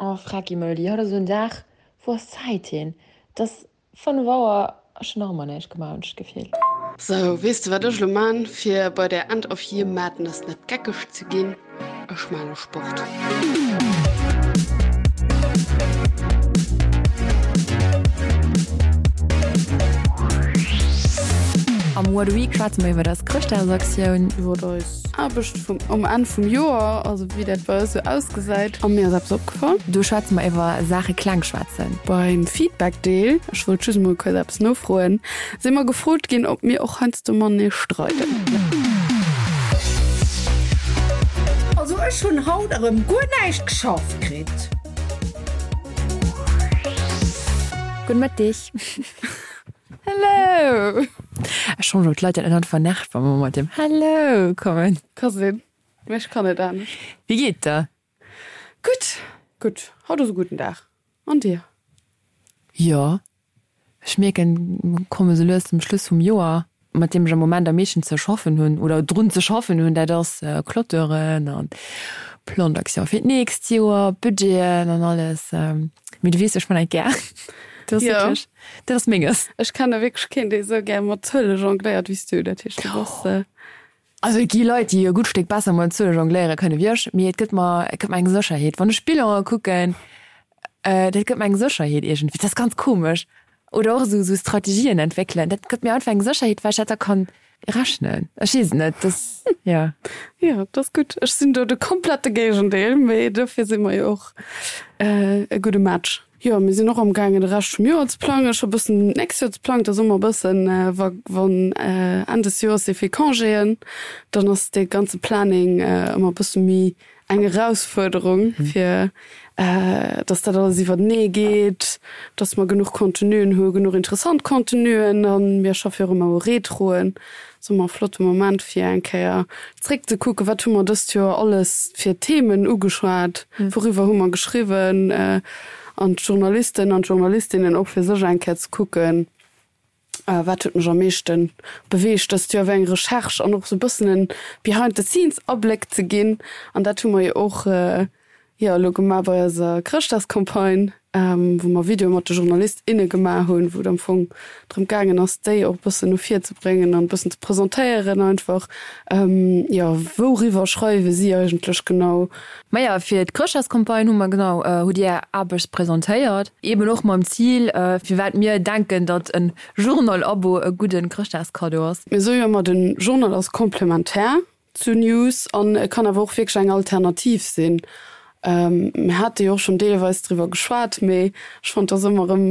Oh Frecki Meuli, haut ass esou en Dag, wou ass d'Zäit hin? Et ass 5 Auer, ech hunn nach ëmmer näischt gemaach, hunn ech d'Gefill. Sou, weess de wat ech elo man fir bei der End of Year Madness net geckeg ze ginn? Ech man elo Sport. Am What a Week schwätze mer iwwer eis Chrëschtdagsaktioun. Iwwer eis Aarbecht vum um Enn vum Joer, also wéi dat bei eis sou ausgesäit. A mir ass eppes opgefall. Do schwätze mer iwwer Saache kleng schwätzen. Beim Feedback-Deel, ech wollt just emol kuerz eppes nofroen, si mer gefrot ginn, ob mir och heiansdo matenee streiden. Also ech hunn haut erëm guer näischt geschafft kritt. Gudde Mëtteg. Hello! Ech schonn elo d'Leit dat net einfach nervt, wa mer mat dem Hello kommen. Ka sinn, mee ech kann net anescht. Wéi geet der? Gutt, gutt. Haut ass e gudden Dag. An dir? Jo, ech mierken, mer komme sou lues zum Schluss vum Joer. Mat deem ech am Moment am meeschten ze schaffen hunn oder drun ze schaffen hunn, dat ass Clôturen an Plan d'action fir d'nächst Joer, Budgeten an alles. Mee du weess, ech man dat gär. Dat ass wierklech, dat ass menges. Ech kenne wierklech keen, dee sou gär mat Zuele jongléiert wéi s du. Dat heescht, du bass. Also et gi Leit, déi e gutt Stéck besser mat Zuele jongléiere kënne wéi ech, mee et gëtt mer, et gëtt mer eng Sécherheet. Wann ech Bilane kucken, dat gëtt mer eng Sécherheet iergendwéi. Dat ass ganz komesch. Oder och esou esou Strategien entwéckelen, dat gëtt mir einfach eng Sécherheet, well ech dat da kann rechnen. Ech weess et net, dat, jo. Jo, dat ass gutt. Ech sinn do de komplette Géigendeel, mee dofir si mer jo och e gudde Match. Jo, mir sinn och am gaangen de Rescht vum Joer ze plangen. Scho bëssen d'nächst Joer ze plangen. Et ass ëmmer e bëssen, wa wann Enn des Joers si vill Congéen, dann ass dee ganze Planning ëmmer e bësse méi eng Erausfuerderung, fir dass dat alles iwwertenee geet, dass mer genuch Contenuen hu, genuch interessant Contenuen. A mir schaffe jo och ëmmer u Retroen. Ass ëmmer e flotte Moment fir eng Kéier zréck ze kucken, wat hu mer dëst Joer alles fir Themen ugeschwat, wouriwwer hu mer geschriwwen an d'Journalisten an d'Journalistinnen och fir sech eng Kéier ze kucken, wat huet mech am meeschte beweegt dëst Joer, wéi eng Recherche an och sou e bëssen en behind the scenes Abléck ze ginn. An dat hu mer jo och Jo, elo gemaach bei eiser Chrëschtdagscampagne, wou mer Videoe mat de Journalist, inne gemaach hunn, wou et am Fong drëm gaangen ass, déi och e bëssen no vir ze bréngen an e bëssen ze presentéieren einfach. Jo, wouriwwer schreiwe si eigentlech genau? Maja, fir d'Chrëschtdagscampagne hu mer genau, hutt Dir Är Aarbecht presentéiert, eben och mam Zil, firwat mir denken, datt e Journal-Abo e gudde Chrëschtdagskaddo ass. Mir soe jo ëmmer, de Journal ass komplementär zu News an e kann awer och wierklech eng Alternativ sinn. Mir hate jo och schonn deelweis driwwer geschwat, mee ech fonnt, et ass ëmmer erëm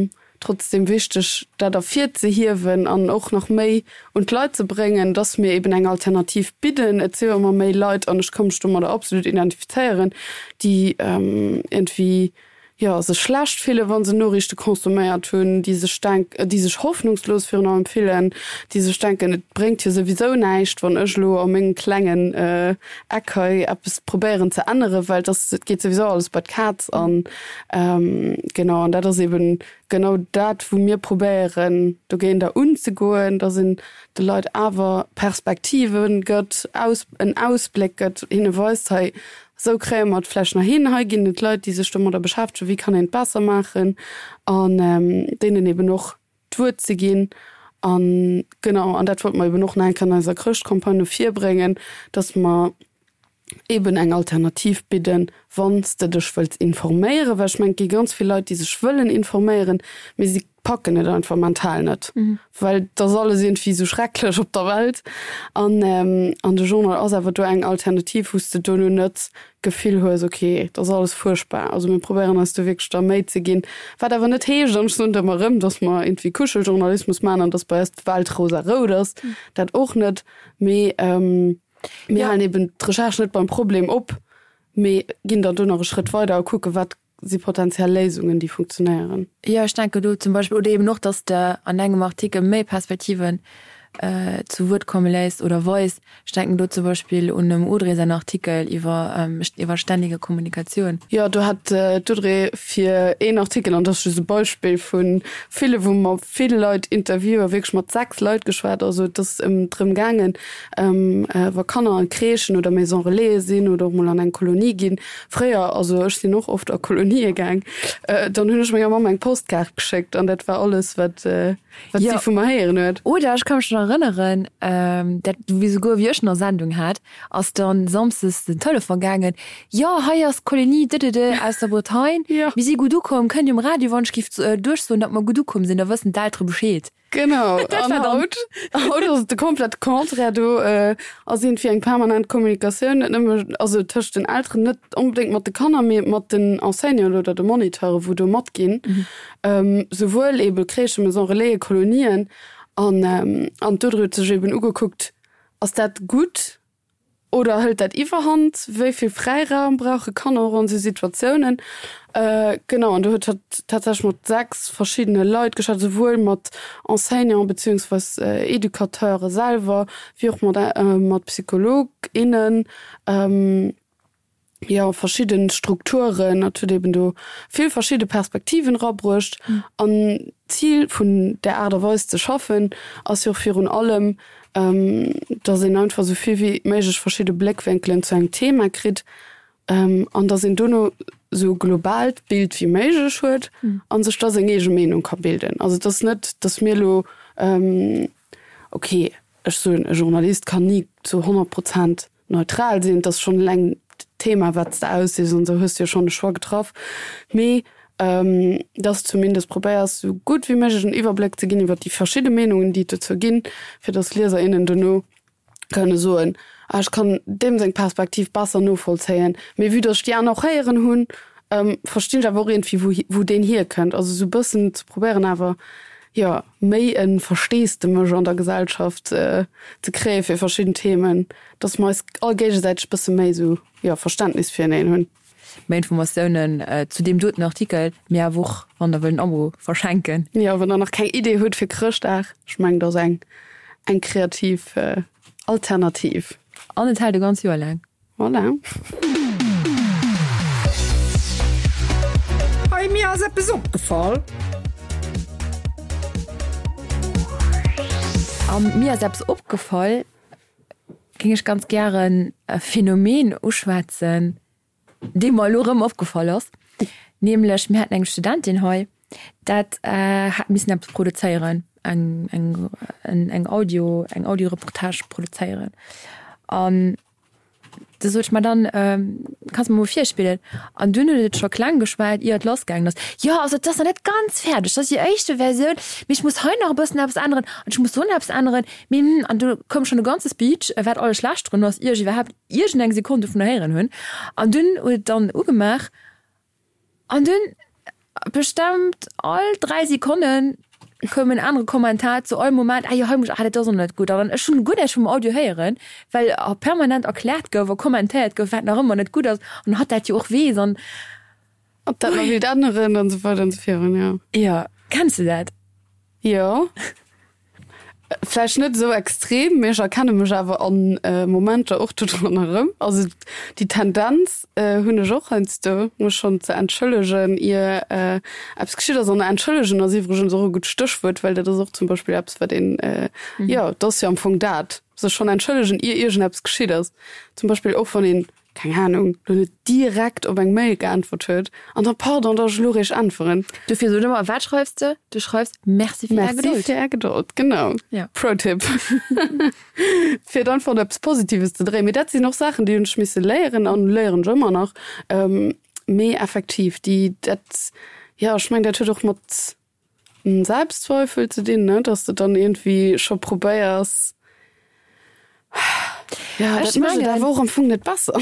trotzdeem wichteg, dat ervirzehiewen an och nach méi un d'Leit ze bréngen, dass mir eben eng Alternativ bidden. Et si jo ëmmer méi Leit, an ech ka mech domadder absolut identifizéieren, déi iergendwéi jo, sech schlecht fillen, wa se Noriichte consomméiert hunn, déi sech denk, déi sech hoffnungslos virun allem fillen, déi sech denken, et bréngt jo souwisou näischt, wann ech elo a mengem klengen Eck hei eppes probéieren ze änneren, well et ass, et geet souwisou alles bei d'Kaz. An genau, an dat ass eben genau dat, wou mir probéieren dogéinter unzegoen, dass een de Leit awer Perspektive gëtt, Aus, en Ausbléck gëtt, hinne weist, hei Esou kréie mer et vläicht nach hin. Hei ginn et Leit, déi sech domadder beschäftegen, wéi kann een et besser maachen an deenen eben och d'Wuert ze ginn. An genau, an dat wollte mer eben och nach eng Kéier an eiser Chrëschtcampagne no vir bréngen, dass mer eben eng Alternativ bidden, wann s de dech wëlls informéieren. Well ech mengen, et gi ganz vill Leit, déi sech wëllen informéieren, mee si packen et einfach mental net, well et ass alles iergendwéi esou schrecklech op der Welt. An an de Journal ass awer do eng Alternativ, wou s de dono net d'Gefill hues, ok, et ass alles fuerchtbar. Also mir probéieren eis do wierklech da Méi ze ginn, wat awer net heescht, an ech soen et ëmmer erëm, datt mer iergendwéi Kuscheljournalismus maachen an datt bei eis d'Welt rosarout ass, dat och net, mee mir halen eben d'Recherche net beim Problem op, mee ginn dann do nach e Schrëtt weider a kucke wat si potentiell Léisungen, déi funktionéieren. Jo, ech denken do zum Beispill, oder eben och, dass de an engem Artikel méi Perspektiven. zu Wuert komme léisst oder weist. Ech denken do zum Beispill un dem Audrey säin Artikel iwwer iwwer ständige Kommunikatioun. Jo, do hat d'Audrey fir een Artikel, an dat ass just e Beispill vu ville, wou mer vill Leit interviewen, wierklech mat 6 Leit geschwat. Also et ass ëm drëm gaangen, wa Kanner an Crèchen oder Maison Relaisen sinn oder och mol an eng Kolonie ginn. Fréier, also ech sinn och oft a Kolonië gaang, dann hunn ech menger Mamm eng Postkaart geschéckt an dat war alles, wat Wat si vu mer héieren huet. Oder ech ka mech nach erënneren, dat wéi souguer wéi ech nach Sendung hat, ass dann samsdes den Telefon gaangen, Jo, hei ass d'Kolonie dëdëdë aus der Bretagne, mir si gutt ukomm, kënnt Dir um Radio wann ech giff duerchsoen, datt mer gutt ukomm sinn, da wëssen d'Eltere Bescheed. Genau, an haut, haut ass et de komplette Contraire, do ass iergendwéi eng permanent Kommunikatioun, net nëmme, also tëscht den Elteren, net onbedéngt mat de Kanner, mee mat den Enseignanten oder de Moniteuren, wou do matginn. Souwuel ebe Crèchen, Maison Relaisen, Kolonien. An an d'Audrey huet sech eben ugekuckt, Ass dat gutt oder hëlt dat Iwwerhand? Wéi vill Fräiraum brauche Kanner och an esou Situatiounen? Genau, an do huet hatt tatsächlech mat 6 verschiddene Leit geschwat, souwuel mat Enseignanten beziehungsweis Educateure selwer, wéi och mat mat Psycholog, innen. jo verschidden Strukturen, et huet eben do vill verschidde Perspektiven erabruecht an d'Zil vun där Aart a Weis ze schaffen ass jo och virun allem, dass een einfach esou vill wéi méiglech verschidde Bléckwénkelen zu engem Thema kritt an dass een dono esou globaalt Bild wéi méiglech huet a sech da seng eege Meenung ka bilden. Also et ass net, dass mir elo, okay, ech soen, e Journalist kann ni zu 100 Prozent neutral sinn, et ass schonn eleng d'Thema wat s de aussichs an esou hues de jo schonn e Choix getraff, mee dass de zumindest probéiers esou gutt wéi méiglech en Iwwerbléck ze ginn iwwer déi verschidde Meenungen déi et dozou ginn, fir dass Lieser, innen dono kënne soen, ah ech kann deem seng Perspektiv besser novollzéien, mee vue dass ech déi aner och héieren hunn, verstinn ech awer och iergendwéi wou wou deen hierkënnt. Also esou e bëssen ze probéieren awer jo méi e Versteesdemech an der Gesellschaft ze kréie fir verschidden Themen, dass mer eis all géigesäiteg bësse méi esou, jo, Verständnis fireneen hunn. Méi Informatiounen zu deem doten Artikel, mee awer och wann der wëllt en Abo verschenken. Jo, wann der nach keng Idee hutt fir Chrëschtdag, ech mengen dat ass eng eng kreativ Alternativ. An et hält e ganz Joer laang. Voilà. Hey, mir ass eppes opgefall. A mir ass eppes opgefall, géing ech ganz gären e Phänomen uschwätzen, dee mer elo erëm opgefall ass, nämlech mir haten eng Studentin hei, dat hat missen eppes produzéieren, eng, eng, eng Audio, eng Audioreportage produzéieren. An Da sot ech, ma dann kanns de mer mol virspillen. An dunn huet et scho kleng geschwat, ier et lassgaangen ass, Jo, also et ass nach net ganz fäerdeg, dat ass déi éischte Versioun, mee ech muss hei nach e bëssen eppes änneren an ech muss do nach eppes änneren, mee hm. An du koum schonn e ganze Speech, wat alles schlecht drun ass, ier ech iwwerhaapt iergendeng Sekonn dovunner héieren hunn. An dunn huet et dann ugemaach. An dunn bestemmt all 3 Sekonnen koum en anere Kommentar zu all Moment, ah jo, hei muss, ah dat ass och net gutt. An ech hunn guer näischt vum Audio héieren, well permanent erkläert gouf a kommentéiert gouf, wat nach ëmmer net gutt ass an hatt dat jo och weess an. Ob dat nach wéilt änneren an esou weider an esou virun, jo. Jo, kenns de dat? Jo. Vläicht net esou extrem, mee ech erkenne mech awer an Momenter och dodran erëm. Also déi Tendenz hunn ech och heiansdo, mech schonn ze entschëllegen, ier eppes geschitt ass. An entschëllegen ass iwwregens och e gutt Stéchwuert, well dat ass och zum Beispill eppes, wat een, jo, et ass jo am Fong dat, sech schonn entschëllegen, ier iergendeppes geschitt ass. Zum Beispill och wann een keng Ahnung, lo net direkt op eng Mail geäntwert huet an dann, pardon, dass ech elo réischt äntweren. Dofir sot ëmmer, wat schreifs de? Du schreifs, Merci fir Är Gedold. Merci fir Är Gedold, genau. Ja. Pro-Tipp. Fir et einfach op eppes Positives ze dréien. Mee dat sinn och Saachen, déi hunn ech misse léieren an léieren ech ëmmer nach. Mee effektiv, déi, dat, jo, ech mengen, dat huet och mat Selbstzweifel ze dinn, ne, dass de dann iergendwéi scho probéiers, ja, dat mécht et awer och am Fong net besser.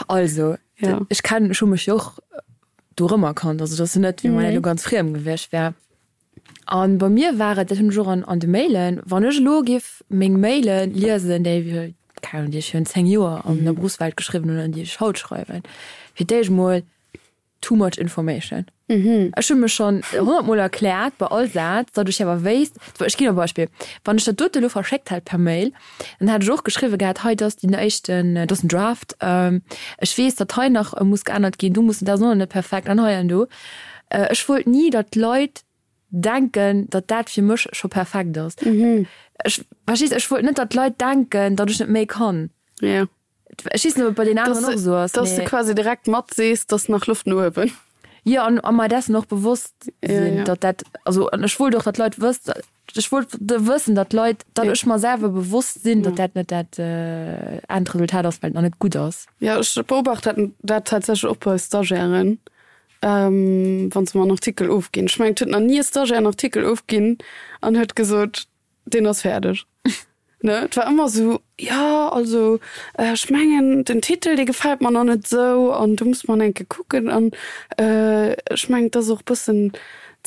Also, ja. ech kennen, ech hu mech jo och do erëmerkannt, also et ass jo net, wéi wann dat elo ganz friem gewiescht wär. An bei mir war et, dat hunn ech och an an de Mailen, wann ech elo géif meng Maile liesen, déi, keng Ahnung, déi ech virun 10 Joer an der Berufswelt geschriwwen hunn an déi ech haut schreiwen, fir d'éischt mol. Too much information. Ech hu mech schonn honnertmol erkläert bei all Saz, datt ech awer wéisst, ech ginn e Beispill, wann ech dat dote elo verschéckt hätt per Mail, dann hätt ech och geschriwwe gehat, hei dat ass déi éischten, dat ass den Draft, ech weess, datt hei nach muss geännert ginn, do muss, dat ass och nach net perfekt an hei an do. Ech wollt ni, datt d'Leit denken, datt dat fir mech scho perfekt ass. Ech, verstees, ech wollt net, datt d'Leit denken, datt ech net méi kann. Ech weess net, ob et bei den aneren och esou ass. Dass de quasi direkt mat sees, dass nach Loft no uewen. Jo, an a mer dessen och bewosst sinn, datt dat, also an ech wollt och, datt d'Leit wëss, ech wollt wëssen, datt d'Leit, datt ech mer selwer bewosst sinn, datt dat net dat Endresultat ass, well et nach net gutt ass. Jo, ech beobacht dat dat tatsächlech och bei Stagiairen, wa se mer en Artikel ofginn. Ech mengen, et huet nach ni e Stagiaire en Artikel ofginn an huet gesot, Deen ass fäerdeg. Ne, et war ëmmer esou, jo, also ech mengen den Titel, dee gefält mer nach net esou an do muss mer nach eng Kéier kucken an ech mengen, et ass och e bëssen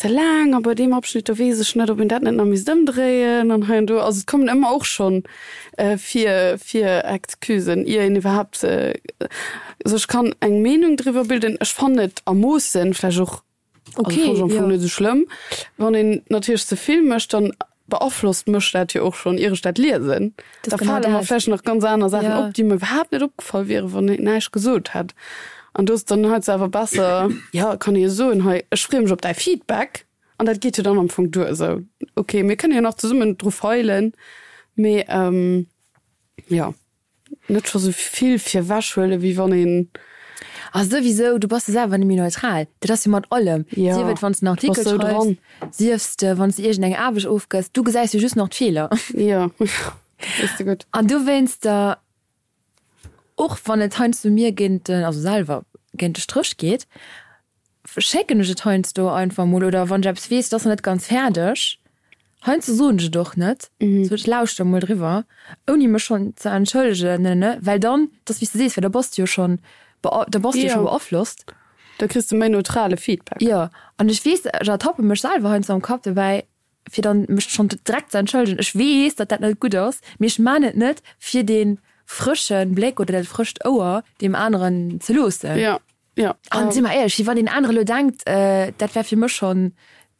ze laang a bei deem Abschnitt, do weess ech net, ob een dat net nach misst ëmdréien an hei an do. Also et kommen ëmmer och schonn vir, vir Excusen, ier een iwwerhaapt sech kann eng Meenung driwwer bilden. Ech fannen et a Moossen vläicht och Okay, also, ja. net so schlëmm. Wann een natierlech ze vill mécht, dann beaflosst mech dat jo och schonn, ier ech dat liesen. Das da genau fale mer vläicht nach ganz aner Saachen ja. op, déi mir iwwerhaapt net opgefall wieren, wann een näischt gesot hätt. An do ass dann heiansdo awer besser, ja, kann ee jo soen, hei, ech freeë mech op däi Feedback. An dat geet jo dann am Fong duer. Esou, okay, mir kënne jo nach zesummen dru feilen, mee ähm, ja. Net scho sou vill virwech huelen, wéi wann een. A souwisou, du bass jo selwer net méi neutral. Dat ass jo mat allem. Ja, Sief et wann s de en du bass Artikel sou schreifs, dran. siefs de wann s de iergend eng Aarbecht ofgëss, du gesäis jo just nach d'Feeler. Jo, dat weess de gutt. An dowéinster, och wann et heiansdo mir géint den, also selwer géint de Stréch geet, schécken ech et heiansdo einfach mol oder wann ech eppes weess, et ass nach net ganz fäerdeg, heiansdo soen ech et och net, sou ech lauschter mol driwwer, ouni mech schonn ze entschëllegen, ne ne, well dann, et ass wéi s de sees, well da bass de jo schonn, da bass de jo scho beaflosst. Da kriss de méi neutrale Feedback. Jo, an ech weess, ech ertappe mech selwer heiansdo am Kapp dobäi, fir dann mech schonn direkt ze entschëllegen. Ech weess, datt dat net gutt ass, mee ech man et net, fir dee frësche Bléck oder dat frëscht Ouer deem aneren ze loossen. Jo. Ja. An si mer éierlech, wéi wann deen anere lo denkt, dat wär fir mech schonn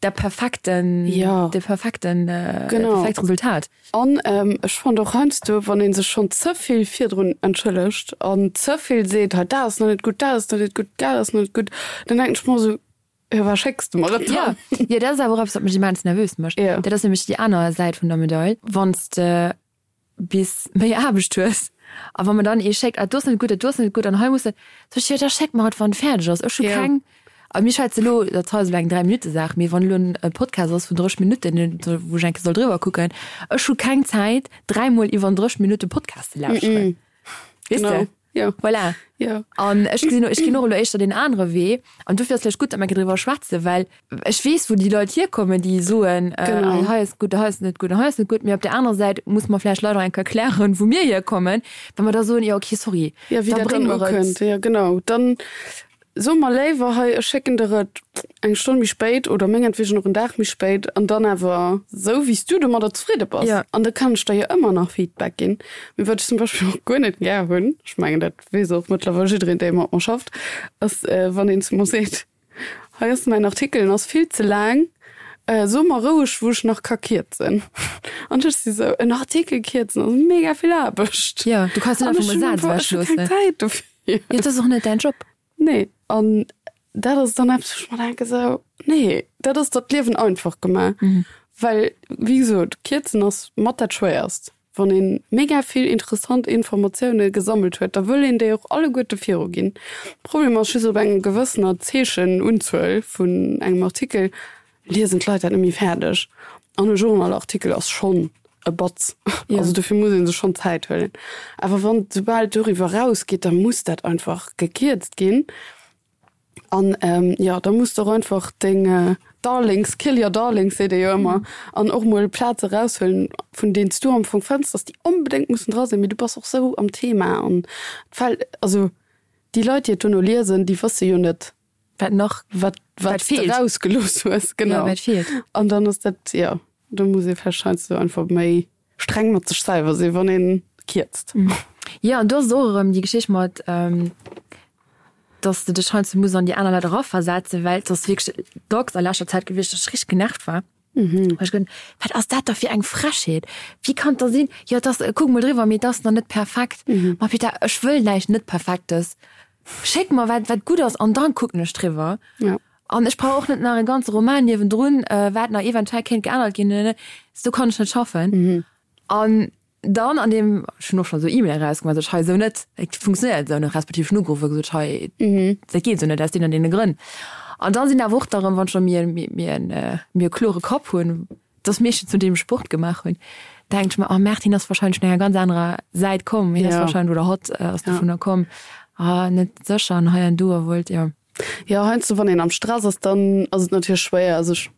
dat perfekten, Ja. de perfekten, Genau. perfekt Resultat. An ech fand och heiansdo, wann ee sech schonn ze vill virdrun entschëllegt an ze vill seet, hei dat ass nach net gutt, dat ass nach net gutt, dat ass nach net gutt, dann denken ech mer esou, jo wat schécks de mer et Ja, dann? jo, dat ass awer och eppes, wat mech immens nervös mécht. Ja. Dat ass nämlech déi aner Säit vun der Medail, wann s de bis méi Aarbecht hues a wa mer dann ee schéckt, ah do ass net gutt, dat do ass net gutt an hei muss dat, sot ech, jo da schéck mer et wann et fäerdeg ass, ech hu keng, a mir schwätze elo, dat hei ass elo eng 3 Minutte Saach, mee wann elo en Podcast ass vun 30 Minutten, wou ech eng Kéier soll driwwer kucken, ech hu keng Zäit dräimol iwwer en 30 Minutte Podcast ze lauschteren, weess de? Jo. Voilà. Jo. An ech gesinn, ech ginn och elo éischter deen anere Wee. An dofir ass vläicht gutt, datt mer driwwer schwätzen, well ech weess, wou déi Leit hierkommen, déi soen, Genau. hei ass gutt, hei ass net gutt an hei ass net gutt. Mee op där anerer Säit muss mer vläicht Leit och eng Kéier erklären, wou mir hierkommen, wa mer da soen, jo okay, sorry, Ja, wéi da dat bréng dann mer et. ukënnt. Jo, genau. Dann So mer léiwer, hei, ech schécken der et eng Stonn méi spéit oder mengetwegen och en Dag méi spéit an dann awer sou, wéi s du domadder zefridde bass. Ja. An da kann ech der jo ëmmer nach Feedback ginn. Mee wat ech zum Beispill och guer net gär hunn, ech mengen, dat weess och mëttlerweil jiddereen, dee mat mer schafft, ass, wann een zu mer seet, Hei ass mäin Artikel, en ass vill ze laang, so mer roueg, wou ech nach ka kierzen. An ech si sou, en Artikel kierzen ass mega vill Aarbecht. Ja, du kanns net An einfach ech mol hunn Saz einfach, ech hu keng ewechloossen. Zäit dofir. Jo, dat ass och net däin Job. Nee, an dat ass dann eppes, wou ech mer denken, esou, nee, dat ass der d'Liewen einfach gemaach. Well, wéi gesot, kierzen ass mat dat Schwéierst. Wann ee mega vill interessant Informatioune gesammelt huet, da wëll een déi och alleguerte viruginn. Problem ass just, op enger gewëssener Zeechenunzuel vun engem Artikel liesen d'Leit dat net méi fäerdeg. An e Journalartikel ass schonn e Batz. Ja. Also dofir muss ee sech schonn Zäit huelen. Awer wann soubal et doriwwer erausgeet, da muss dat einfach gekierzt ginn. An jo, da muss de och einfach deng Darlings, kill your darlings seet ee jo ëmmer, an och mol Plaze eraushuelen, vun deenen s du am Fong fënns, datt déi onbedéngt mussen dra sinn, mee du bass och sou am Thema an et fält, also déi Leit, déi et dono liesen, déi wësse jo net, Wat nach, wat, wat wat s de feelt. rausgelooss hues, Ja, genau. wat feelt. An dann ass dat, jo, do muss ee vläicht heiansdo einfach méi streng mat sech selwer sinn, wann ee kierzt. Jo, an do ass et och erëm déi Geschicht mat. Dass de dech heiansdo muss an déi aner Leit eraversetzen, well et ass wierklech dacks a leschter Zäit gewiescht, dass ech richteg genervt war. Well ech geduet hunn, Wat ass dat da fir eng Frechheet? Wéi kann et da sinn? Jo, et ass, kuck mol driwwer, mee et ass nach net perfekt. Ma putain, ech wëll näischt net Perfektes. Schéck mer wat, wat gutt ass an dann kucken ech driwwer. An ech brauch och net nach e ganze Roman niewendrun, wat nach eventuell kéint geännert ginn. Esou kann ech net schaffen. An dann an deem, ech hunn och schonn esou E-Mailen erausgemaach, sot ech, hei esou net, et funktionéiert esou net, respektiv ech hunn ugeruff a gesot, hei dat geet esou net aus deenen an deene Grënn. An da sinn awer och da erëm, wann scho mir mir en mir e klore Kapp hunn, dass meeschtens nodeem ech Sport gemaach hunn, denken ech mer, oh Merde, hien ass wahrscheinlech vun enger ganz anerer Säit komm, hien ass wahrscheinlech oder hatt ass dovunner komm, ah net sécher an hei an do a wollt, jo. Jo, heiansdo wann een am Stress ass, dann ass et natierlech schwéier sech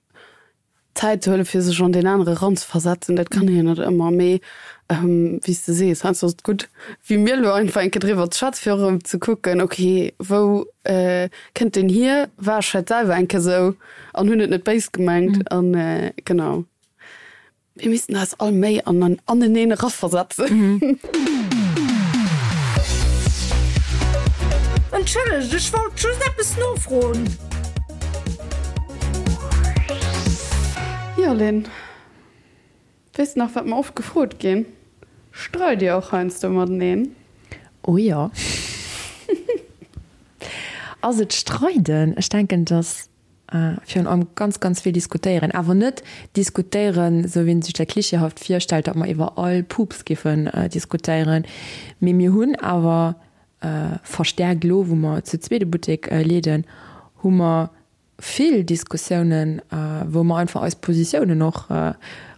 Zäit ze huelen, fir sech an deen anere eranzeversetzen. Dat kann een jo net ëmmer, mee wéi s de sees, heiansdo ass et gutt, wéi mir elo einfach eng Kéier driwwer ze schwätzen, fir och erëm ze kucken, ok, wou kënnt deen hier, war ech vläicht selwer eng Kéier esou an hunn et net béis gemengt an genau. Mir missten eis all méi an aneneen eraversetzen. Entschëllegt, ech wollt just eppes nofroen. Jo Lynn, weess de nach wat mer oft gefrot ginn? Streit dir och heiansdo mateneen? Oh jo. Ass et streiden? Ech denken dass Virun allem ganz, ganz vill diskutéieren. Awer net diskutéieren, esou wéi een sech dat klischeehaft virstellt, datt mer iwwer all Pups giffen diskutéieren. Mee mir hunn awer verstärkt elo, wou mer zu zweet e Buttek leeden, hu mer vill Diskussiounen, wou mer einfach eis Positiounen och,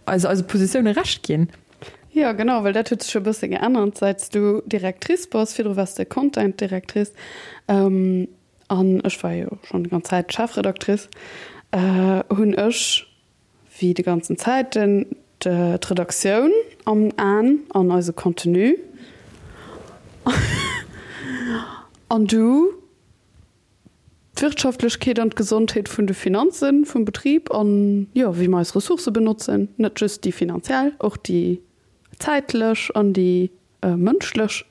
eis eise Positioune Recht ginn. Jo, genau, well dat huet sech jo e bësse geännert, säit s du Directrice bass. Virdru waars de Content Directrice. An ech war jo schonn déi ganz Zäit Chefredactrice, hunn ech wéi de ganzen Zäiten d'Redaktioun am Aen an eise Contenu. An du d'Wirtschaftlechkeet an d'Gesondheet vun de Finanze vum Betrib an, jo, wéi mer eis Ressourcë benotzen, net just déi finanziell, och déi zäitlech an déi mënschlech.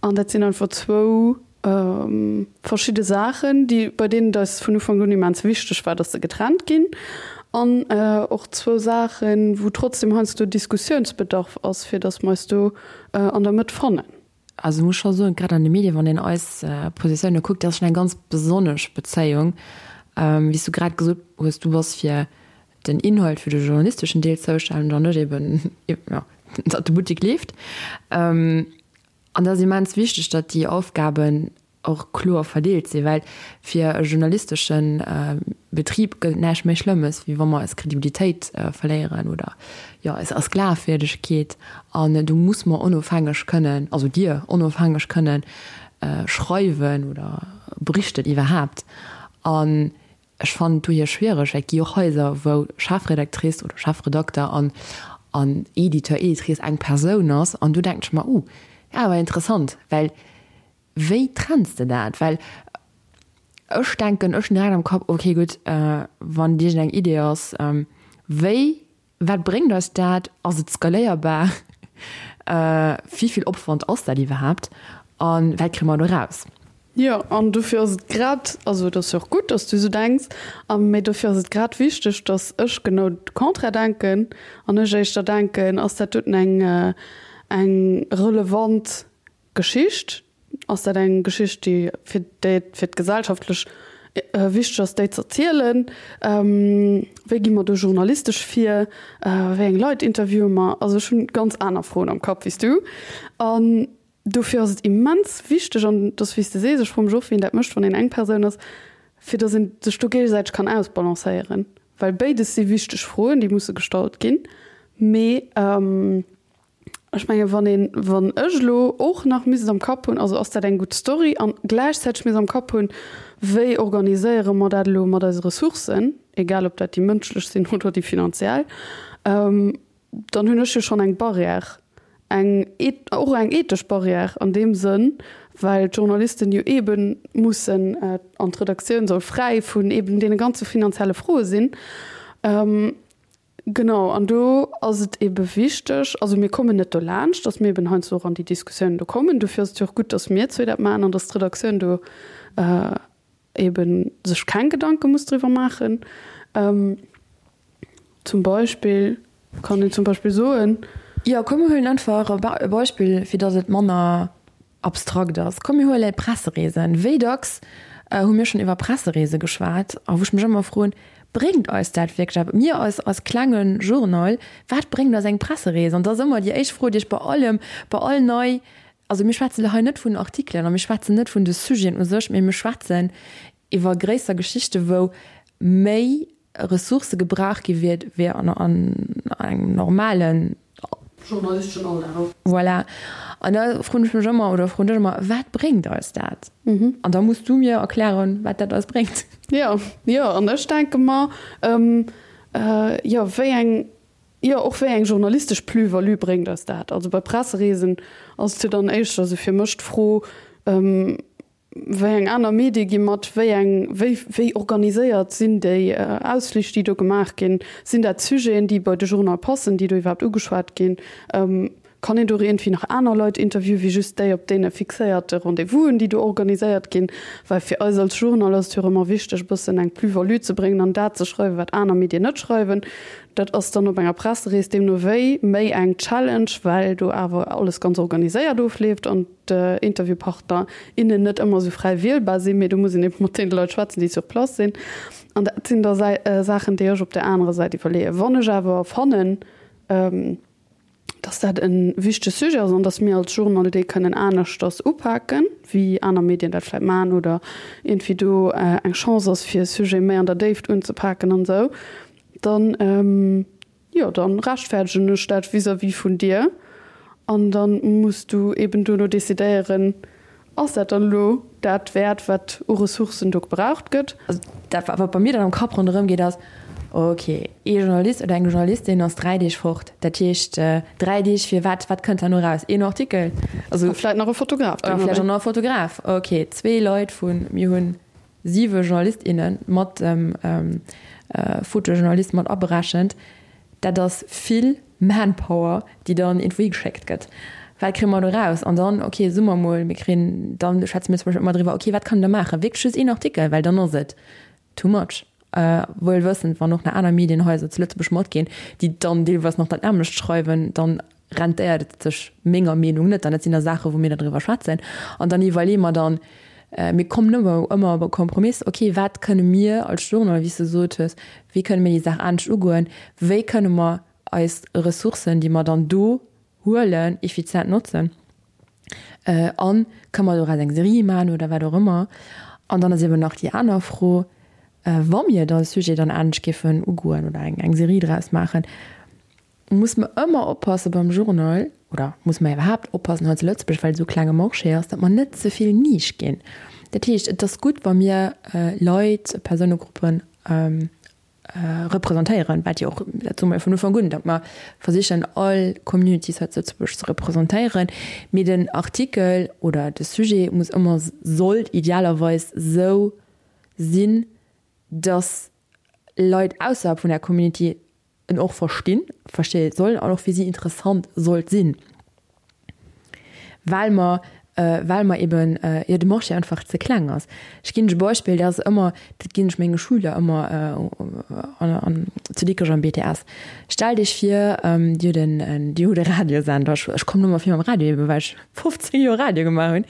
An dat sinn einfach zwou verschidde Saachen, déi, bei deenen et eis vun Ufank un immens wichteg war, dass se getrennt ginn. An och zwou Saachen, wou trotzdem heiansdo Diskussiounsbedarf ass, fir dass mer eis do an der Mëtt fannen. Also ech muss scho soen, grad an de Medien, wann een eis Positioune kuckt, dat ass schonn eng ganz besonnesch Bezéiung. Wéi s du grad gesot hues, du bass fir den Inhalt, fir de journalisteschen Deel zoustänneg an net eben, jo, datt de Buttek leeft. An dat ass immens wichteg, datt déi Aufgaben och kloer verdeelt sinn, well fir e journalistesche Betrib gëtt et näischt méi Schlëmmes, wéi wa mer eis Kredibilitéit verléieren oder, jo, eis eis Glafwierdegkeet. An do muss mer onofhängeg kënnen, also Dir onofhängeg kënnen schreiwen oder berichten iwwerhaapt. An Ech fannen et dohier schwiereg, well et gi och Haiser, wou Chefredactrice oder Chefredakter an an Editeur, Editrice eng Persoun ass. An do denken ech mer, Uh, awer interessant, well wéi trenns de dat? Well ech denken, ech hunn direkt am Kapp, okay gutt, wann iergendeng Idee ass, wéi Wat bréngt eis dat? Ass et skaléierbar? Wéi vill Opwand ass dat iwwerhaapt? A wat kréie mer do eraus? Jo, an dofir ass et grad, also et ass jo och gutt, datt s du esou denks, a mee dofir ass et grad wichteg, datt ech genau de Contraire denken an ech éischter denken, ass dat doten eng eng relevant Geschicht? Ass dat eng Geschicht, déi fir déi et fir d'gesellschaftlech wichteg ass, déi z'erzielen? Wéi gi mer do journalistesch vir? Wéi eng Leit interviewe mer? Also ech hunn ganz aner Froen am Kapp wéi s du. An dofir ass et immens wichteg, an et ass wéi s de sees, ech froe mech och, wien dat mécht, wann een eng Persoun ass, fir datt een sech do géigesäiteg kann ausbalancéieren. Well béides si wichteg Froen, déi musse gestallt ginn. Mee Ech menge wann een, wann ech elo och nach misst am Kapp hunn, also ass dat eng gutt Story an gläichzäiteg misst am Kapp hunn, wéi organiséiere mer dat elo mat eise Ressourcen, egal ob dat déi mënschlech sinn oder déi finanziell, dann hunn ech jo schonn eng Barrière, eng och eng ethesch Barrière an deem Sënn, well d'Journalisten jo eebe mussen an d'Redaktioun soll fräi vun eeben deene ganze finanzielle Froe sinn. Genau, an do ass et ebe wichteg, also mir kommen net dolaanscht, datt mir eben heiansdo och an déi Diskussiounen do kommen. Dofir ass et jo och gutt, datt mir zwee dat maachen an datt d'Redaktioun do. Eben sech keng Gedanke muss driwwer maachen. Zum Beispill kann een zum Beispill soen. Jo, komm mir huelen einfach e Beispill, fir datt et manner abstrakt ass. Komm mir huele Pressereesen. Wéi dacks hu mir schonn iwwer Pressereese geschwat a wou ech mech ëmmer froen, Bréngt eis dat wierklech eppes? Mir als als klenge Journal, wat bréngt eis eng Presserees? An dat ass ëmmer déi éischt Fro, déi ech bei allem, bei all nei Also mir schwätzen elo hei net vun Artikelen a mir schwätzen net vun de Sujeten u sech, mee mir schwätzen iwwer gréisser Geschichte wou méi Ressourcë gebraucht gi wier wéi an engem normalen journalisteschen Alldag. Voilà. An da froen ech mech ëmmer oder froen dech ëmmer, Wat bréngt eis dat? An da muss du mir erklären, wat dat eis bréngt. Jo, jo. An ech denke mer, jo, wéi eng Jo, och wéi eng journalistesch Plus-value bréngt eis dat? Also bei Pressereesen ass et jo dann éischter esou fir mech d'Fro, wéi eng aner Medie gi mat, wéi eng, wéi, wéi organiséiert sinn déi Ausflich, déi do gemaach ginn? Sinn dat Sujeten, déi bei de Journal passen, déi do iwwerhaapt ugeschwat ginn? Kann een do iergendwéi nach aner Leit interviewen, wéi just déi op deene fixéierte Rendez-vousen, déi do organiséiert ginn? Well fir eis als Journal ass et jo och ëmmer wichteg, e bëssen eng Plus-value ze bréngen an dat ze schreiwen, wat aner Medien net schreiwen. Dat ass dann op enger Presserees deemno wéi méi eng Challenge, well do awer alles ganz organiséiert ofleeft an d'Interviewpartner, innen net ëmmer esou fräi wielbar sinn, mee do muss een ebe mat deene Leit schwätzen, déi sur place sinn. An dat sinn da Saachen, déi ech op där anerer Säit iwwerleeën. Wann ech awer fannen, dass dat e wichtege Sujet ass an dass mir als Journal dee kënnen aneschters upaken, wéi aner Medien dat vläicht maachen oder iergendwéi do eng Chance ass, fir e Sujet méi an der Déift unzepaken an esou, dann, jo, da rechtfäerdegen ech dat vis-à-vis vun dir an da muss du eeben duerno decidéieren, Ass dat dann elo dat wäert, wat u Ressourcen do gebraucht gëtt? Also dat, wat bei mir dann am Kapp ronderëm geet, ass, ok, ee Journalist oder eng Journalistin ass 3 Deeg fort. Dat heescht, 3 Deeg fir wat? Wat kënnt herno eraus? Een Artikel? Also. A vläicht nach e Fotograf. A vläicht och nach e Fotograf. Ok, zwee Leit vu, mir hunn siwe Journalist, inne mat dem Fotojournalist mat aberechent. Dat ass vill Manpower, déi dann iergendwou higeschéckt gëtt. Wat kréie mer do raus? An dann, okay, soe mer emol, mir kréien, dann schwätze mir zum Beispill ëmmer driwwer, okay, wat kann een da maachen? Wierklech just een Artikel, well dann ass et too much. Wuel wëssend, wann och nach aner Medienhaiser zu Lëtzebuerg matginn, déi dann deelweis nach dat nämmlecht schreiwen, dann rentéiert et sech menger Meenung net. An dat sinn da Saachen, wou mir da driwwer schwätzen. An dann iwwerleeë mer dann, mir kommen ëmmer ëmmer op e Kompromiss, okay, wat kënne mir als Journal, wéi s de gesot hues, wéi kënne mir déi Saach anescht ugoen, wéi kënne mer eis Ressourcen, déi mer dann do huelen, effizient notzen a kënne mer doraus eng Serie maachen oder wat och ëmmer. An dann ass eeben nach déi aner Fro, wa mir da e Sujet dann anescht géifen ugoen oder eng Serie draus maachen, muss mer ëmmer oppasse beim Journal, oder muss mer iwwerhaapt oppassen hei zu Lëtzebuerg, well et esou klenge Marché ass, datt mer net ze vill Nisch ginn. Dat heescht, et ass gutt, wa mir Leit, Persounegruppen representéieren, wat jo och, dat soe mer jo vun Ufank un, datt mer versichen all Communities hei zu Lëtzebuerg ze representéieren, mee den Artikel oder de Sujet muss ëmmer, sollt idealerweis esou sinn, datt Leit ausserhalb vun där Community en och verstinn, versteeë sollen an och fir si interessant sollt sinn, well mer, well mer eben, jo, de Marché einfach ze kleng ass. Ech ginn lech e Beispill, dat ass ëmmer, dat ginn ech menge Schüler ëmmer an, an zu Dikrech am BTS. Stellt Iech vir, Dir hutt en, Dir hutt e Radiosender, ech, ech kommen ëmmer vill mam Radio eben, well ech 15 Joer Radio gemaach hunn.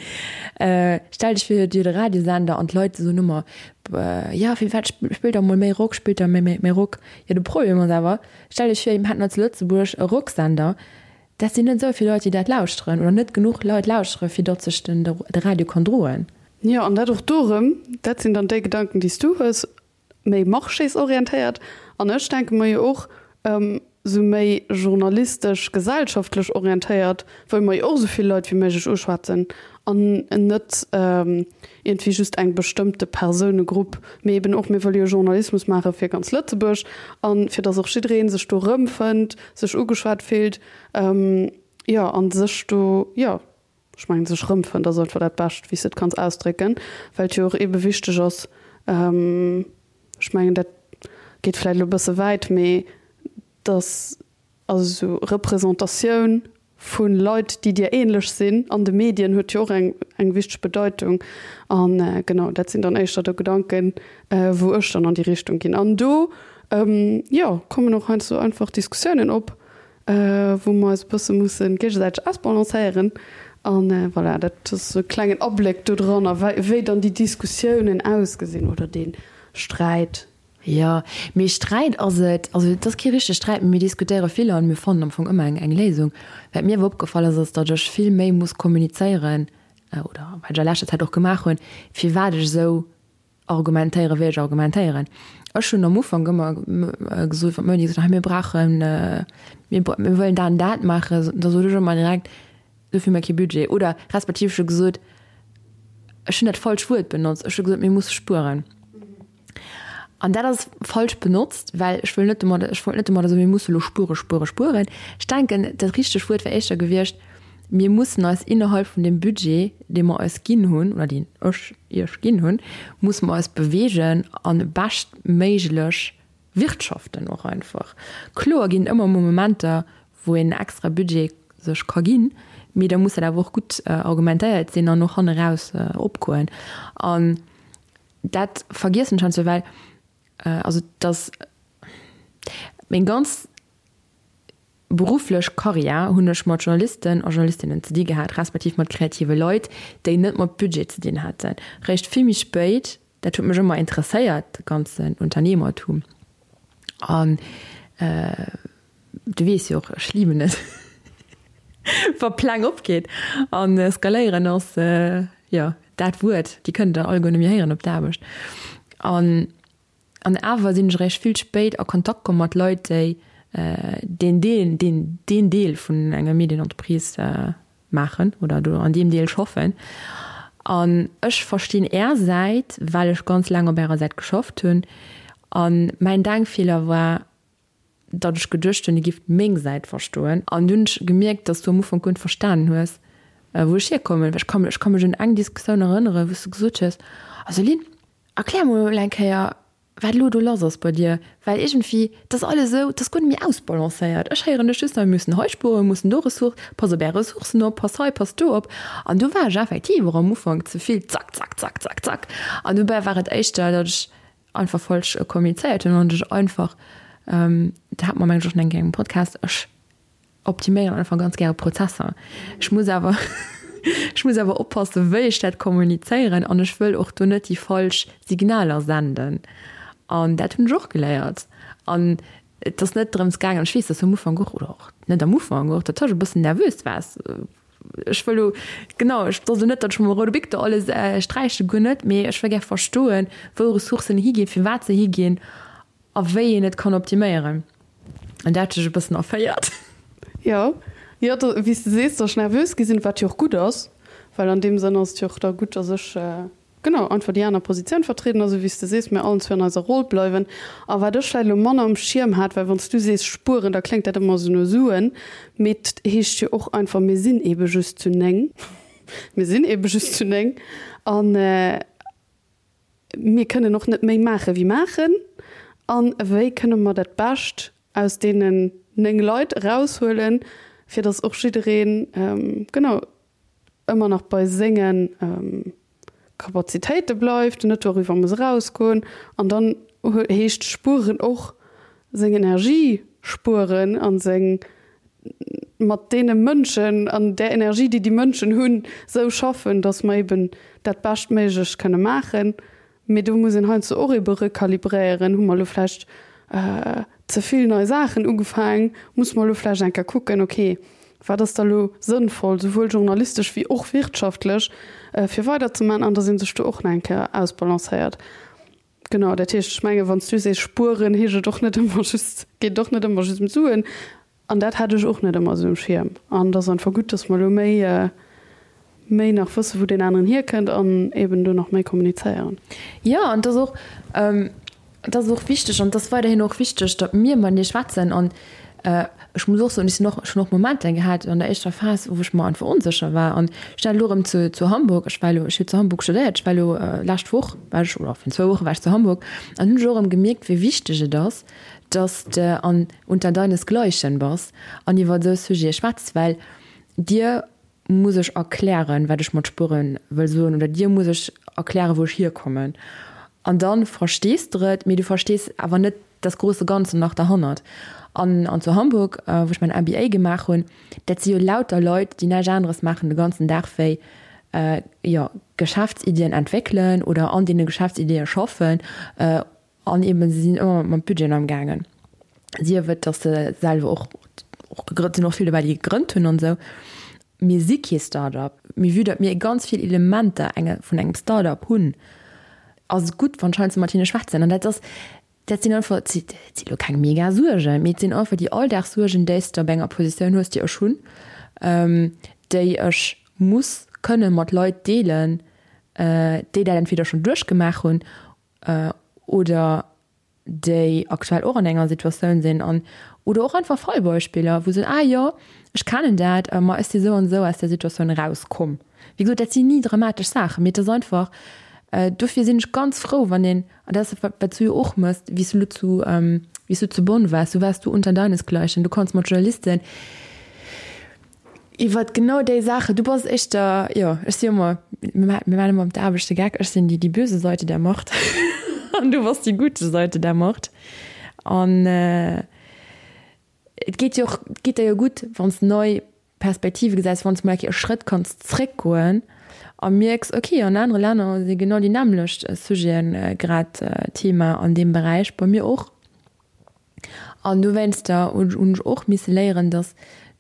Stellt Iech vir, Dir hutt e Radiosender an d'Leit soen ëmmer, Jo, firwat spillt der mol méi Rock, spillt der méi, méi, méi Rock. Jo, de Problem ass awer, stellt Iech vir, mir hätten hei zu Lëtzebuerg e Rocksender, dat sinn net esou vill Leit, déi dat lauschteren, oder net genuch Leit lauschtere fir datt sech den de Radio kann droen. Jo, an dat och do erëm, dat sinn dann déi Gedanken, déi s du hues, méi marchésorientéiert. An ech denke mer jo och, esou méi journalistesch, gesellschaftlech orientéiert, wëlle mer jo och esou vill Leit wéi méiglech uschwätzen an net iergendwéi just eng bestëmmte Persounegrupp, mee eben och, mir wëlle jo Journalismus maache fir ganz Lëtzebuerg a fir datt och jidderee sech do erëmfënnt, sech ugeschwat fillt, jo, a sech do, jo, ech mengen, sech erëmfënnt ass einfach dat Bescht, wéi s de et kanns ausdrécken, well et jo och eebe wichteg ass, Ech mengen, dat geet vläicht elo e bësse wäit, mee dass also esou Representatioun Vu Leit, déi dir ähnlech sinn an de Medien, huet jo och eng eng wichteg Bedeitung. An genau, dat sinn dann éischter de Gedanken, wou ech dann an déi Richtung ginn. An do, jo, kommen och heiansdo einfach Diskussiounen op, wou mer eis e bësse musse géigesäiteg ausbalancéieren. An voilà, dat ass e klengen Abléck do dran, wéi dann déi Diskussiounen ausgesinn oder dee Sträit. Jo, mee Sträit ass et, also et ass kee richtege Sträit, mee mir diskutéiere vill an mir fannen am Fong ëmmer eng eng Léisung. Wat mir awer opgefall ass, ass datt ech vill méi muss kommunizéieren, oder wat ech a leschter Zäit och gemaach hunn, firwat ech esou argumentéieren, wéi ech argumentéieren. Ech hunn am Ufank ëmmer gesot, wann d'Moni gesot huet, hei mir brauchen, mir mir wëllen dat an dat maachen, da sot ech ëmmer direkt, dofir hu mir kee Budget. Oder respektiv ech hu gesot, ech hunn dat falscht Wuert benotzt, ech hu gesot, mir musse spueren. An dat ass falsch benotzt, well ech wëll net domadder, ech wollt net domadder soen, mir musse lo spuere, spuere, spueren. Ech denken, dat richtegt Wuert wär éischter gewiescht, mir mussen eis innerhalb vun deem Budget, dee mer eis ginn hunn, oder deen ech Iech ginn hunn, musse mer eis bewegen a beschtméiglech wirtschaften och einfach. Kloer ginn et ëmmer emol Momenter, wou een extra Budget sech ka ginn, mee da muss dat awer och gutt argumentéiert sinn an och hanneraus opgoen. An Dat vergiessen ech heiansdo, well also dass meng ganz berufflech Karriär hunn ech mat Journalisten a Journalistinnen ze di gehat, respektiv mat kreative Leit, déi net mat Budget ze dinn haten. Réischt vill méi spéit, dat huet mech ëmmer interesséiert, de ganzen Unternehmertum an Du weess jo och, ech liben et, wa Pläng opgeet. An skaléieren ass, jo, dat Wuert, déi kënnt der alleguer net méi héieren op der Aarbecht. An, an awer sinn ech eréischt vill spéit a Kontakt komm mat Leit, déi deen Deel, deen, deen Deel vun enger Medienentreprise maachen oder do an deem Deel schaffen. An ech verstinn Är Säit, well ech ganz laang op Ärer Säit geschafft hunn. A mäin Denkfeeler war, datt ech geduecht hunn, dir gifft meng Säit verstoen. An dunn hunn ech gemierkt, datt s du am Ufank guer net verstanen hues, wou ech hierkommen. Well ech ka ech ka mech un eng Diskussioun erënneren, wou s du gesot hues, Also Lynn, erklär mol eng Kéier, wat elo do lass ass bei dir. Well iergendwéi, 't ass alles esou, 't ass guer net méi ausbalancéiert. Ech héieren dech just nach, mir mussen hei spueren, mir mussen do Ressource, pass op är Ressourcen op, pass hei, pass do op. An do war ech effektiv och am Ufank ze vill zack, zack, zack, zack, zack. An dobäi war et éischter, datt ech einfach falsch kommunizéiert hunn an ech einfach, dat hat mer mengen ech och schon eng Kéier engem Podcast, ech optiméieren einfach ganz gäre Prozesser. Ech muss awer ech muss awer oppassen, wéi ech dat kommunizéieren an ech wëll och do net déi falsch Signaler senden. An dat hunn ech och geléiert. An et ass net drëms gaangen, ech weess, dass du am Ufank och, oder och net am Ufank, och dat ech e bëssen nervös waars, Ech wëll lo, genau, ech soll net, datt ech mam roude Bic do alles sträichen, guer net, mee ech wëll gär verstoen, wou Ressourcen higinn, firwat se higinn a wéi een et kann optiméieren. An dat huet sech e bëssen erféiert. Jo, jo, wéi s de sees, datt ech nervös gi sinn, wat jo och gutt ass, well an deem Sënn ass et jo och da gutt, datt ech Genau, einfach déi aner Positioun vertrieden, a sou wéi s de sees, mir allen zwee an eiser Roll bleiwen. A wat ech vläicht elo manner um Schierm hat, well wann s du sees spueren, da kléngt dat ëmmer esou no Suen, mee 't heescht jo och einfach, mir sinn eebe just zu 9, mir sinn eebe just zu 9 a mir kënnen och net méi maache wéi maachen. A wéi kënne mer dat Bescht aus deenen 9 Leit eraushuelen, fir datt och jiddereen, genau, ëmmer nach bei senge Kapazitéite bleift, net doriwwer muss erausgoen. An dann heescht spueren och seng Energie spueren a seng mat deene Mënschen an där Energie, déi déi Mënschen hunn, esou schaffen, datt mer eben dat Beschtméiglecht kënne maachen. Mee do muss een heiansdo och ebe rekalibréieren. Hu mer elo vläicht ze vill nei Saachen ugefaangen? Musse mer elo vläicht eng Kéier kucken, okay, wat ass da elo sënnvoll, souwuel journalistesch wéi och wirtschaftlech, fir weiderzemaachen? An datt ee sech do och nach eng Kéier ausbalancéiert. Genau, dat heescht, ech mengen, wann s du sees spueren, heescht et och net ëmmer just, geet et och net ëmmer just ëm d'Suen. An dat hat ech och net ëmmer esou um Schierm. An et ass einfach gutt, dass mer elo méi, méi nach wëssen, wou deen aneren hierkënnt an eben do nach méi kommunizéieren. Jo, an et ass och, et ass och wichteg an et ass weiderhin och wichteg, datt mir matenee schwätzen. An ech muss och soen, ech sinn och, ech hunn och Momenter gehat an der éischter Phas, wou ech mer einfach onsécher war. An ech war elo erëm zu, zu Hamburg, ech war elo, ech hu zu Hamburg studéiert, ech war elo lescht Woch war ech, oder virun zwou Woche war ech zu Hamburg an hunn ech och erëm gemierkt, wéi wichteg et ass, dass de an unter deinesgleichen bass an iwwer esou Sujete schwätz, well. Dir muss ech erklären, wat ech mat spueren wëll soen, oder dir muss ech erklären, wou ech hierkommen. An da verstees de et, mee du verstees awer net das große Ganze nach derhannert. An, an zu Hamburg, wou ech mäin MBA gemaach hunn, dat si jo lauter Leit, déi näischt aneres maachen de ganzen Dag wéi, jo, Geschäftsiddien entwéckelen oder an deene Geschäftsiddie schaffen. An eben, se sinn ëmmer mat Budgeten amgaangen. Sief et, datt se selwer och, och gegrënnt, sinn och vill dobäi, déi gegrënnt hunn an esou. Mir si kee Start-up, mee vue datt mir ganz vill Elementer enge vun engem Start-up hunn, ass et gutt, wann ech heiansdo mat hinne schwätzen. An dat ass, dat sinn einfach, et si elo keng mega Suergen, mee et sinn einfach déi Alldagssuergen, déi s de op enger Positioun hues, déi ech hunn, déi ech muss kënne mat Leit deelen, déi dat entweder schonn duerchgemaach hunn oder déi aktuell och an enger Situatioun sinn an oder och einfach Fallbeispiller, wou se soen, ah jo, ech kennen dat, ma ech si sou an esou aus där Situatioun erauskomm. Wéi gesot, dat sinn ni dramatesch Saachen, mee et ass einfach, dofir sinn ech ganz frou, wann een, an dat ass wat wat s du jo och mëss, wéi s du elo zu, wéi s du zu Bonn waars, du waars do unter deinesgleichen, du konns mat Journalisten Iwwert genau déi Saachen. Du bass éischter, jo, ech si ëmmer, mir maachen ëmmer op der Aarbecht de Geck, ech sinn déi déi böse Seite der Macht an du bass déi gute Seite der Macht. An et geet jo och, et geet der jo gutt, wann s de nei Perspektive gesäis, wann s de mol eng Kéier e Schrëtt kanns zréckgoen a mierks, okay, an anere Länner si genau déi nämmlecht Sujete grad Thema an deem Beräich, bei mir och. An dowéinster hunn ech och misse léieren, dass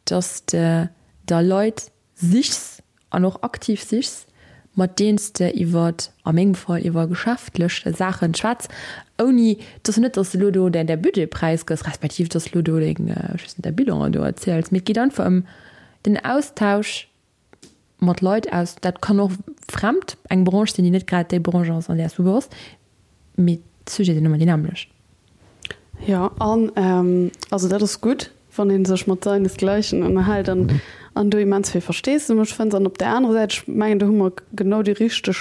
dass de der Leit sichs an och aktiv sichs, mat deenen s de iwwer, a mengem Fall, iwwer geschäftlech Saachen schwätz, ouni, et ass jo net, dass de elo do däi Budget präisgëss, respektiv dass de elo do deng, ech weess net, däi Bilan do erziels, mee et geet einfach ëm den Austausch mat Leit aus, dat kann och fremd eng Branche sinn, déi net grad déi Branche ass, an där s du bass, mee d'Sujete sinn ëmmer déi nämmlecht. Jo, an also dat ass gutt, wann ee sech mat seinesgleichen ënnerhält an an do immens vill Versteesdemech fënnt. An op där anerer Säit, ech mengen, do hu mer genau déi richteg,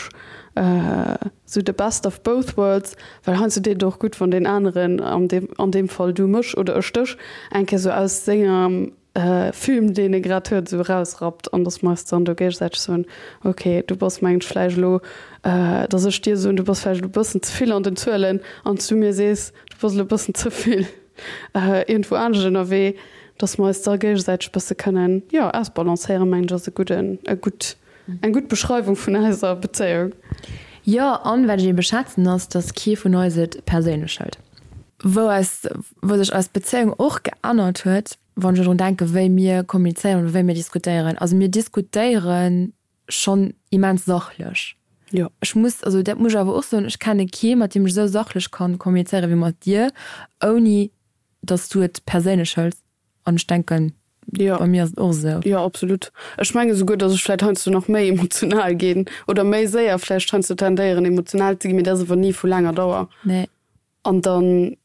esou the best of both worlds, well heiansdo deet et och gutt, wann deen aneren, an deem an deem Fall du mech oder ech dech, eng Kéier esou aus sengem Film, deen e grad huet, esou erausrappt an dass mer eis dann do géigesäiteg soen, ok, du bass mengen ech vläicht elo, dass ech dir soen, du bass vläicht elo e bëssen ze vill an den Zuelen an s du mir sees, du bass elo e bëssen ze vill iergendwou anescht ënnerwee, dass mer eis da géigesäiteg e bësse kënnen, jo, ausbalancéieren, mengen ech ass e gudden, e gutt, eng gutt Beschreiwung vun eiser Bezéiung. Jo, an wat ech ebe schätzen ass, dass kee vun eis et perséinlech hëlt. Wou eis, wou sech eis Bezéiung och geännert huet, Wann ech drun denken, wéi mir kommunizéieren oder wéi mir diskutéieren, also mir diskutéiere schonn immens sachlech. Jo. Ech muss, also dat muss ech awer och soen, ech kenne kee mat deem ech esou sachlech kann kommunizéiere wéi mat dir, ouni datt s du et perséinlech hëls. An ech denken, Jo. bei mir ass et och esou. Jo, absolut. Ech menge souguer, datt ech vläicht heiansdo nach méi emotional ginn oder méi séier vläicht heiansdo tendéieren emotional ze ginn, mee dat ass awer ni vu laanger Dauer. Nee. An da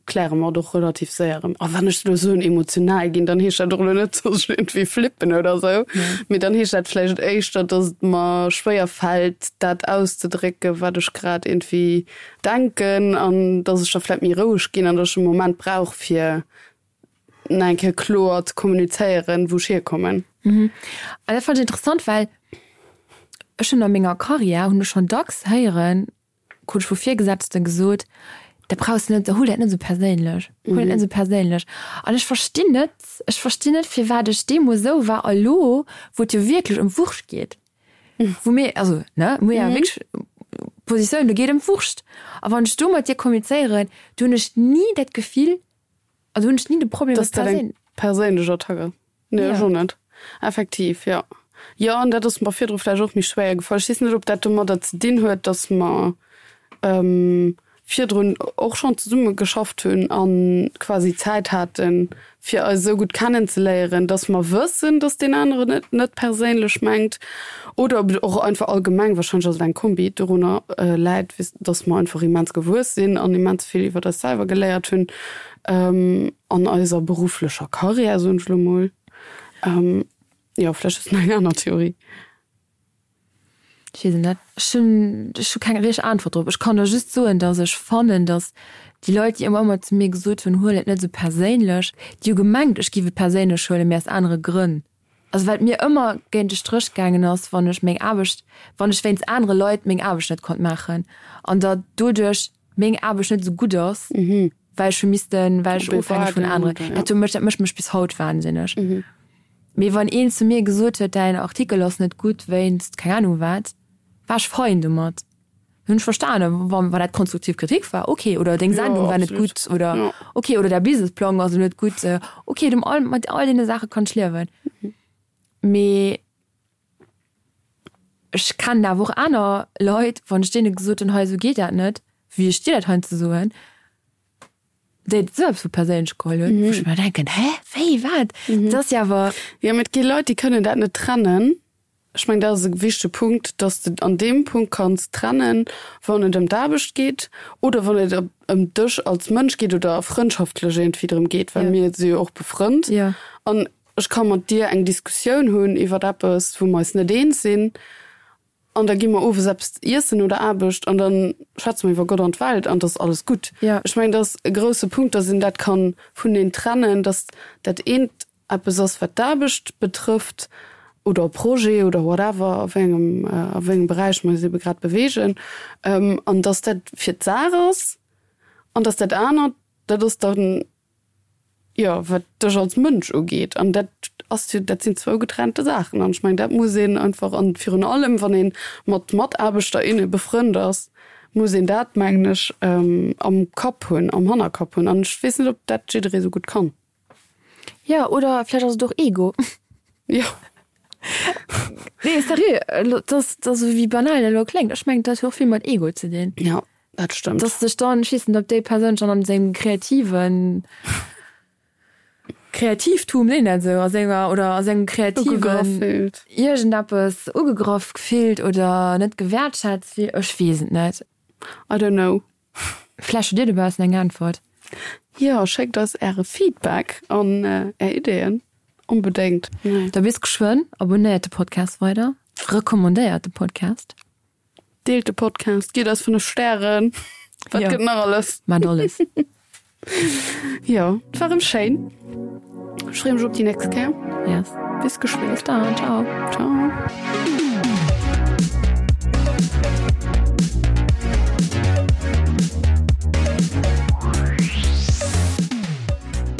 kläre mer et och relativ séier erëm. A wann ech elo soen emotional ginn, dann heescht dat och elo net, datt ech iergendwéi flippen oder esou, mee dann heescht dat vläicht éischter, datt et mer schwéier fält, dat auszedrécken, wat ech grad iergendwéi denken an datt ech da vläicht méi roueg ginn an datt ech e Moment brauch, fir nach eng Kéier kloer ze kommunizéieren, wou ech hierkommen. An dat fannen ech interessant, well ech hunn a menger Karriär hunn ech schonn dacks héieren, krut ech vu Virgesetzten gesot, dat brauchs de net, huel dat net esou perséinlech, huel dat net esou perséinlech. An ech verstinn net, ech verstinn net, firwat ech deemools esou war a lo, wou et jo wierklech ëm d'Wurscht geet, wou mir, also ne, mir ja wierklech Positioun, do geet ëm d'Wurscht. A wann ech do mat dir kommunizéieren, do hunn ech ni dat Gefill, also hunn ech ni de Problem, dass dat eng perséinlech Attack ass. Nee, ech och net. Effektiv, jo. Jo, an dat ass mer virdru vläicht och méi schwéier gefall. Ech weess net, ob dat domadder ze dinn huet, datt mer virdrun och schonn zesumme geschafft hunn a quasi Zäit haten, fir eis esou gutt kennenzeléieren, datt mer wëssen, datt deen aneren et net perséinlech mengt. Oder ob et och einfach allgemeng, warscheinlech ass et eng Kombi, dorunner läit, datt mer einfach immens gewuess sinn an immens vill iwwer eis selwer geléiert hunn. An eiser berufflecher Karriär, soen ech elo mol. Jo, vläicht hues de nach eng aner Theorie. Ech weess et net. Ech hunn, ech hu keng richteg Äntwert drop. Ech kann der just soen, datt ech fannen, datt déi Leit, déi ëmmer ëmmer zu mir gesot hunn, huel et net esou perséinlech, déi hu gemengt, ech géif et perséinlech huelen, mee aus anere Grënn. Also wat mir ëmmer géint de Stréch gaangen ass, wann ech meng Aarbecht, wann ech wéinst anere Leit meng Aarbecht net konnt maachen an datt doduerch meng Aarbecht net esou gutt ass, well ech hu missten, well ech ofhängeg vun aneren, dat huet mech, dat mécht mech bis haut wahnsinneg. Mee wann een zu mir gesot huet, däin Artikel ass net gutt wéinst keng Ahnung wat, war ech fein domat. Hunn ech verstanen, wann dat konstruktiv Kritik war, okay, oder deng Sendung war net gutt oder okay, oder däi Businessplang ass net gutt, okay, dem all, mat all deene Saache kann ech liewen. Mee ech kennen awer och aner Leit, wann ech deene gesot hunn, hei esou geet dat net, wéi ech dir dat heiansdo soen, déi et esou eppes vu perséinlech geholl hunn, wou ech mer denken, hä, wéi, wat? Dat ass jo awer. Jo, mee et gi Leit, déi kënnen dat net trennen. Ech mengen, dat ass e wichtege Punkt, dass de an deem Punkt kanns trennen, wann et ëm d'Aarbecht geet oder wann et ëm dech als Mënsch geet oder frëndschaftlech iergendwéi drëm geet, well mir si jo och befrënnt. An ech ka mat dir eng Diskussioun hunn iwwer eppes, wou mer eis net eens sinn, an da gi mer owes eppes iessen no der Aarbecht an da schwätze mer iwwer Gott an d'Welt an et ass alles gutt. Ech mengen, dat ass e grousse Punkt, dass een dat ka vuneen trennen, dass dat eent eppes ass wat d'Aarbecht betrëfft oder e Projet oder whatever a wéi engem a wéi engem Beräich mer eis ebe grad beweegen, an datt dat fir d'Saach ass an datt dat anert, dat ass dann, jo, wat dech als Mënsch ugeet. An dat ass jo, dat sinn zwou getrennte Saachen. An ech mengen, dat muss een einfach, an virun allem wann ee mat Mataarbechter, inne befrënnt ass, muss een dat, mengen ech, am Kapp hunn, am Hannerkapp hunn. An ech weess net, ob dat jidderee sou gutt kann. Jo, oder vläicht ass et och Ego. Jo. Nee, sérieux, elo, dass, dass, esou wéi banal dat elo kléngt, ech mengen, dat huet och vill mat Ego ze dinn. Jo, dat stëmmt. Dass sech dann, ech weess net, ob déi Persoun schonn an sengem kreativen Kreativtum, seet een dat esou, a senger, oder a sengem kreativen Ugegraff fillt. Iergendeppes ugegraff fillt oder net gewäertschätzt fillt, ech weess et net. I don't know. Vläicht hutt Dir dobaussen eng Äntwert. Jo, schéckt eis Äre Feedback an Är Ideeën onbedéngt. Da bis geschwënn. Abonnéiert de Podcast weider, recommandéiert de Podcast. Deelt de Podcast, gitt eis 5 Stären. Wat gëtt nach alles? Maacht alles. Jo, et war erëm schéin. Ech freeë mech op déi nächst Kéier. Yes. Bis geschwënn. Bis dann. Ciao. Ciao.